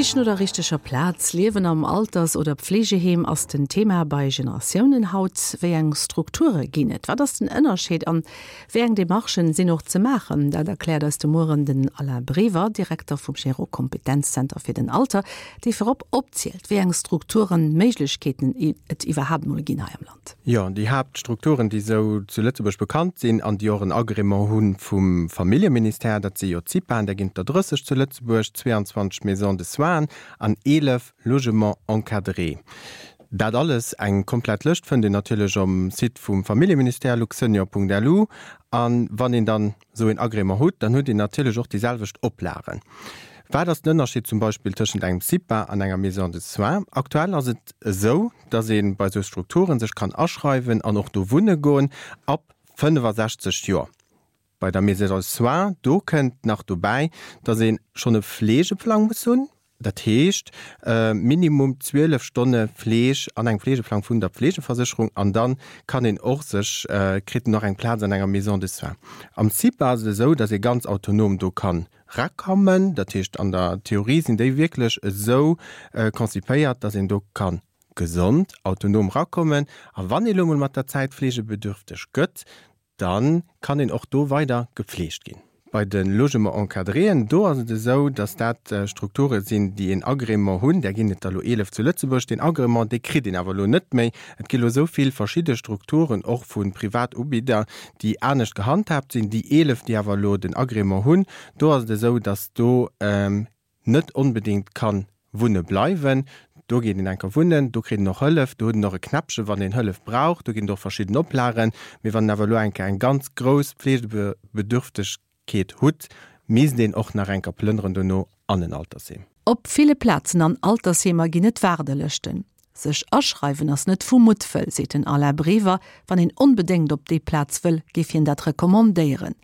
D'Sich no der richteger Plaz, Liewen am Alters oder Pflegeheem ass den Thema bei Generatiounen haut. Wéi eng Strukture ginn et? Wat ass den Ënnerscheed an wéi eng Demarchen sinn och ze maachen? Dat erkläert eis de Mueren den Alain Brever, Direkter vum Gero Kompetenzzenter fir den Alter, dee virop opzielt, wéi eng Strukturen, Méiglechkeeten et iwwerhaapt mol ginn hei am Land. Jo, déi Haaptstrukturen, déi esou zu Lëtzebuerg bekannt sinn an déi och en Agrément hu vum Familljeministère, dat si jo d'CIPAen, där ginn et der 30 zu Lëtzebuerg, 22 Maisons de soins an 11 Logements encadrés. Dat alles, eng komplett Lëscht, fënnt een natierlech um Site vum Familljeministère, luxsenior.lu. A wann een dann esou een Agrément hutt, dann hutt een natierlech och déi selwecht Oplagen. Wat ass den Ënnerscheed zum Beispill tëschent engem CIPA an enger Maison de soins? Aktuell ass et esou, dass ee bei esou Strukturen sech kann aschreiwen an och do wunne goen ab 65 Joer. Bei der Maison de soins, do kënnt nach dobäi, dass ee schonn e Fleegeplang muss hunn, dat heescht minimum 12 Stonne Fleeg an engem Fleegeplang vun der Pflegeversécherung an da kann een och sech, kritt en och eng Plaz an enger Maison de soins. Am CIPA ass et esou, dass ee ganz autonom do kann rakommen. Dat heescht, an der Theorie sinn déi wierklech esou konzipéiert, dass een do ka gesond, autonom rakommen. A wann ee lo mol mat der Zäit fleegebedürfteg gëtt, da kann een och do weider gepfleegt ginn. Bei de Logements encadréen, do ass et esou, dass dat Strukture sinn, déi een Agrément hunn. Där ginn et der elo 11 zu Lëtzebuerg. Deen Agrément, dee kritt een awer elo net méi. Et gi elo esou vill verschidde Strukturen, och vu Privatubidder, déi anescht gehandhaabt sinn. Déi 11, déi awer elo den Agrément hunn, do ass et esou, dass do net onbedéngt ka wunne bleiwen. Do geet een enker wunnen, do kritt een och Hëllef, do huet en och e Knäppche wann een Hëllef brauch, do ginn et och verschidden Oplagen. Mee wann een awer elo enker eng ganz grouss Pflegebedürftegkeet hutt, misst een och nach enker plënneren dono an en Altersheem. Op ville Plazen an Altersheemer ginn et Waardelëschten. Sech aschreiwen ass net vu Muttwëll, seet den Alain Brever. Wann een onbedéngt op déi Plaz wëll, géif hien dat recommandéieren.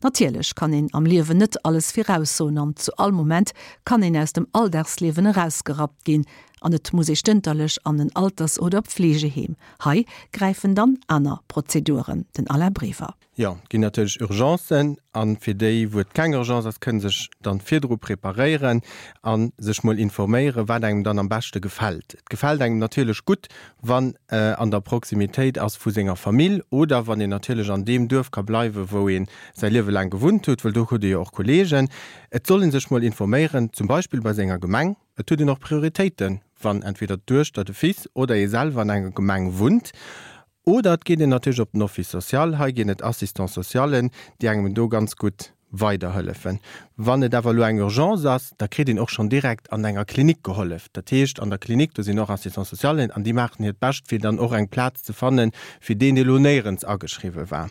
Natierlech kann een am Liewen net alles viraussoen an zu all Moment kann een aus dem Alldagsliewen erausgerappt ginn an et muss ee stënterlech an en Alters oder Pflegeheem. Hei gräifen dann aner Prozeduren. Den Alain Brever. Jo, et ginn natierlech Urgencen a fir déi, wou et keng Urgence ass, kënne sech dann virdru preparéieren a sech mol informéieren, wat engem dann am beschte gefält. Et gefält engem natierlech gutt, wann an der Proximitéit ass vu senger Famill oder wann een natierlech an deem Duerf ka bleiwen, wou ee säi Liewe laang gewunnt huet, well do huet ee jo och Kolleegen. Et soll ee sech mol informéieren, zum Beispill bei senger Gemeng. Et huet een och Prioritéiten, wann entweder d'Duechter, de Fils oder ee selwer an enger Gemeng wunnt. Oder et geet een natierlech op den Office social. Hei ginn et Assistants socialen, déi engem do ganz gutt weiderhëllefen. Wann et awer elo eng Urgence ass, da kritt een och schonn direkt an enger Klinik gehollef. Dat heescht, an der Klinik, do sinn och Assistants socialen an déi maachen hiert Bescht, fir dann och eng Plaz ze fannen, fir deen, dee elo néierens ageschriwwe war.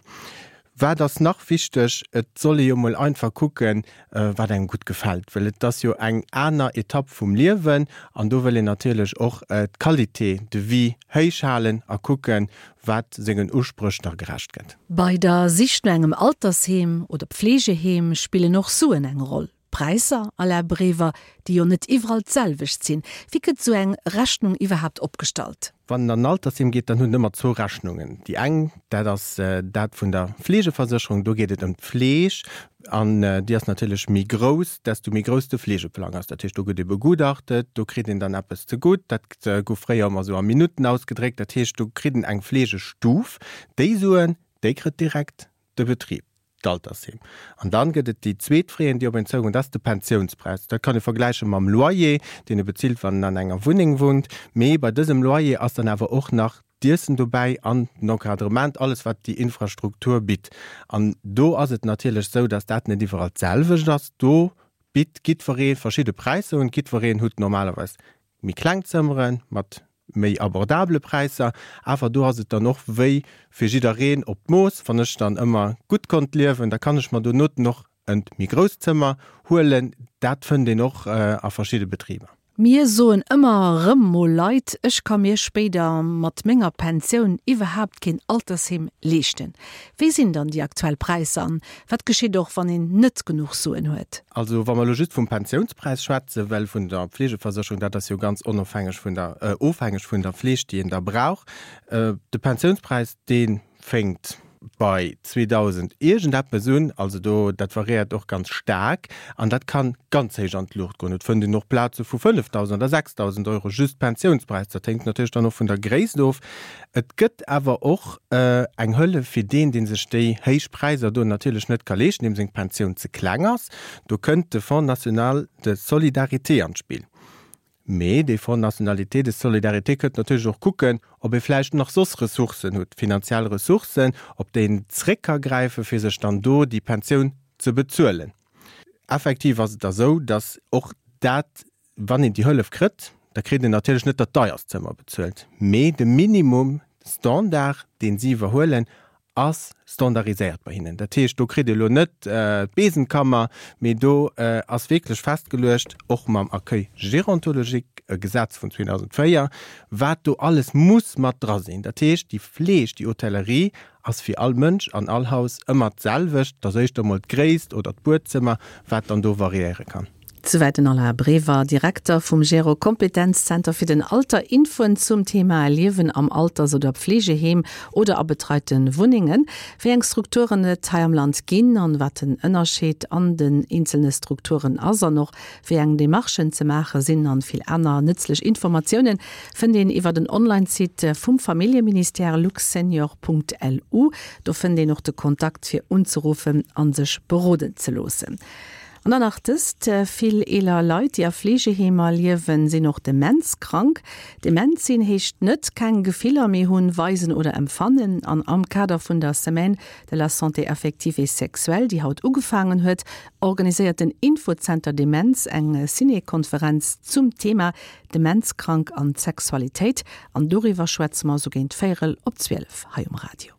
Wat ass nach wichteg? Et soll ee jo mol einfach kucken, wat engem gutt gefält, well et ass jo eng aner Etapp vum Liewen an do wëll een natierlech och d'Qualité de vie héich halen a kucken, wat sengen Uspréch da gerecht gëtt. Bei der Sich no engem Altersheem oder Pflegeheem spillen och Suen eng Roll. D'Präisser, Alain Brever, déi jo net iwwerall d'selwecht sinn. Wéi gëtt esou eng Rechnung iwwerhaapt opgestallt? Wann en an en Altersheem geet, dann huet en ëmmer zwou Rechnungen. Déi eng, dat ass dat vun der Fleegeversécherung, do geet et ëm d'Fleeg an déi ass natierlech méi grouss, desto méi grouss de Fleegeplang ass. Dat heescht, do gëtt ee begutachtet, do kritt een dann eppes zegutt. Dat gouf fréier ëmmer esou a Minutten ausgedréckt. Dat heescht, do kritt en eng Fleegestuf. Déi Suen, déi kritt direkt de Betrib. d'Altersheem. An dann gëtt et déi zweet Frais, déi op een zougoen, dat ass de Pensiounspräis. Dat kann ee vergläiche mam Loyer, deen e bezilt, wann en an enger Wunneng wunnt. Mee bei dësem Loyer ass dann awer och nach d'Iessen dobäi an den Encadrement, alles wat déi Infrastruktur bitt. An do ass et natierlech esou, dass dat net iwwerall d'selwecht ass. Do bitt jiddweree verschidde Präisser un. Jiddwereen hutt normalerweis méi kleng Zëmmere mat méi abordabele Präisser, awer do ass et dann och wéi fir jiddereen op d'Mooss. Wann ech dann ëmmer gutt konnt liewen, da kann ech mer donoten och en méi grousst Zëmmer huelen. Dat fënnt een och a verschidde Betriber. Mir soen ëmmer erëm mol Leit, ech ka mir spéider mat menger Pensioun iwwerhaapt keen Altersheem leeschten. Wéi sinn dann déi aktuell Präisser an wat geschitt och, wann een net genuch Suen huet? Also wa mer elo just vum Pensiounspräis schwätzen, well vun der Pflegeversécherung, dat ass jo ganz onofhängeg vun der, ofhängeg vun der Fleeg, déi een da brauch. De Pensiounspräis, dee fénkt. bei 2.000 iergendeppes un, also do, dat variéiert och ganz staark an dat kann ganz héich an d'Luucht goen. Et fënnt een och Plaze vu 5.000 oder 6.000 Euro just Pensiounspräis. Dat hänkt natierlech dann och vun der Gréisst of. Et gëtt awer och eng Hëllef fir deen, dee sech déi héich Präisser do natierlech net ka leeschten, deem seng Pensioun ze kleng ass. Do kënnt de Fonds national de solidarité an d'Spill. Mee dee Fonds nationalité de solidarité kënnt natierlech och kucken, ob ee vläicht nach soss Ressourcen hutt, finanziell Ressourcen, op déi een zréck ka gräifen, fir sech dann do déi Pensioun ze bezuelen. Effektiv ass et da sou, datt och dat, wann een déi Hëllef kritt, da kritt een natierlech net dat deierst Zëmmer bezuelt, mee de Minimum Standard, deen si iwwerhuelen, ass standardiséiert bei hinnen. Dat heescht, do kritt Dir elo net d'Besenkammer, mee do ass wierklech festgeluecht, och mam Accueil gérontologique, e Gesetz vun 2004, wat do alles muss mat dra sinn. Dat heescht, déi Fleeg, déi Hotellerie ass fir all Mënsch an all Haus ëmmer d'selwecht. Et ass éischter emol d'Gréisst oder d'Buedzëmmer, wat dann do variéiere kann. Souwäit den Alain Brever, Direkter vum Gero Kompetenzzenter fir den Alter. Infoen zum Thema Liewen am Alters oder Pflegeheem oder a betreite Wunnengen, wéi eng Strukturen et hei am Land ginn an wat den Ënnerscheed an den eenzelne Strukturen ass an och wéi eng Demarchen ze maache sinn an vill aner nëtzlech Informatiounen fënnt een iwwer den Online-Site vum Familljeministère luxsenior.lu. Do fënnt een och de Kontakt fir unzeruffen an sech beroden ze loossen. An dann nach dëst, Vill eeler Leit, déi a Fleegeheemer liewen, sinn och demenzkrank. Dement sinn heescht net keng Gefiller méi hunn, weisen oder empfannen. An am Kader vun der Semaine de la santé affective et sexuelle, déi haut ugefaangen huet, organiséiert den Infozenter Demenz eng Ciné-Konferenz zum Thema Demenzkrank an Sexualitéit. An doriwwer schwätze mer sou géint véierel op 12 hei um Radio.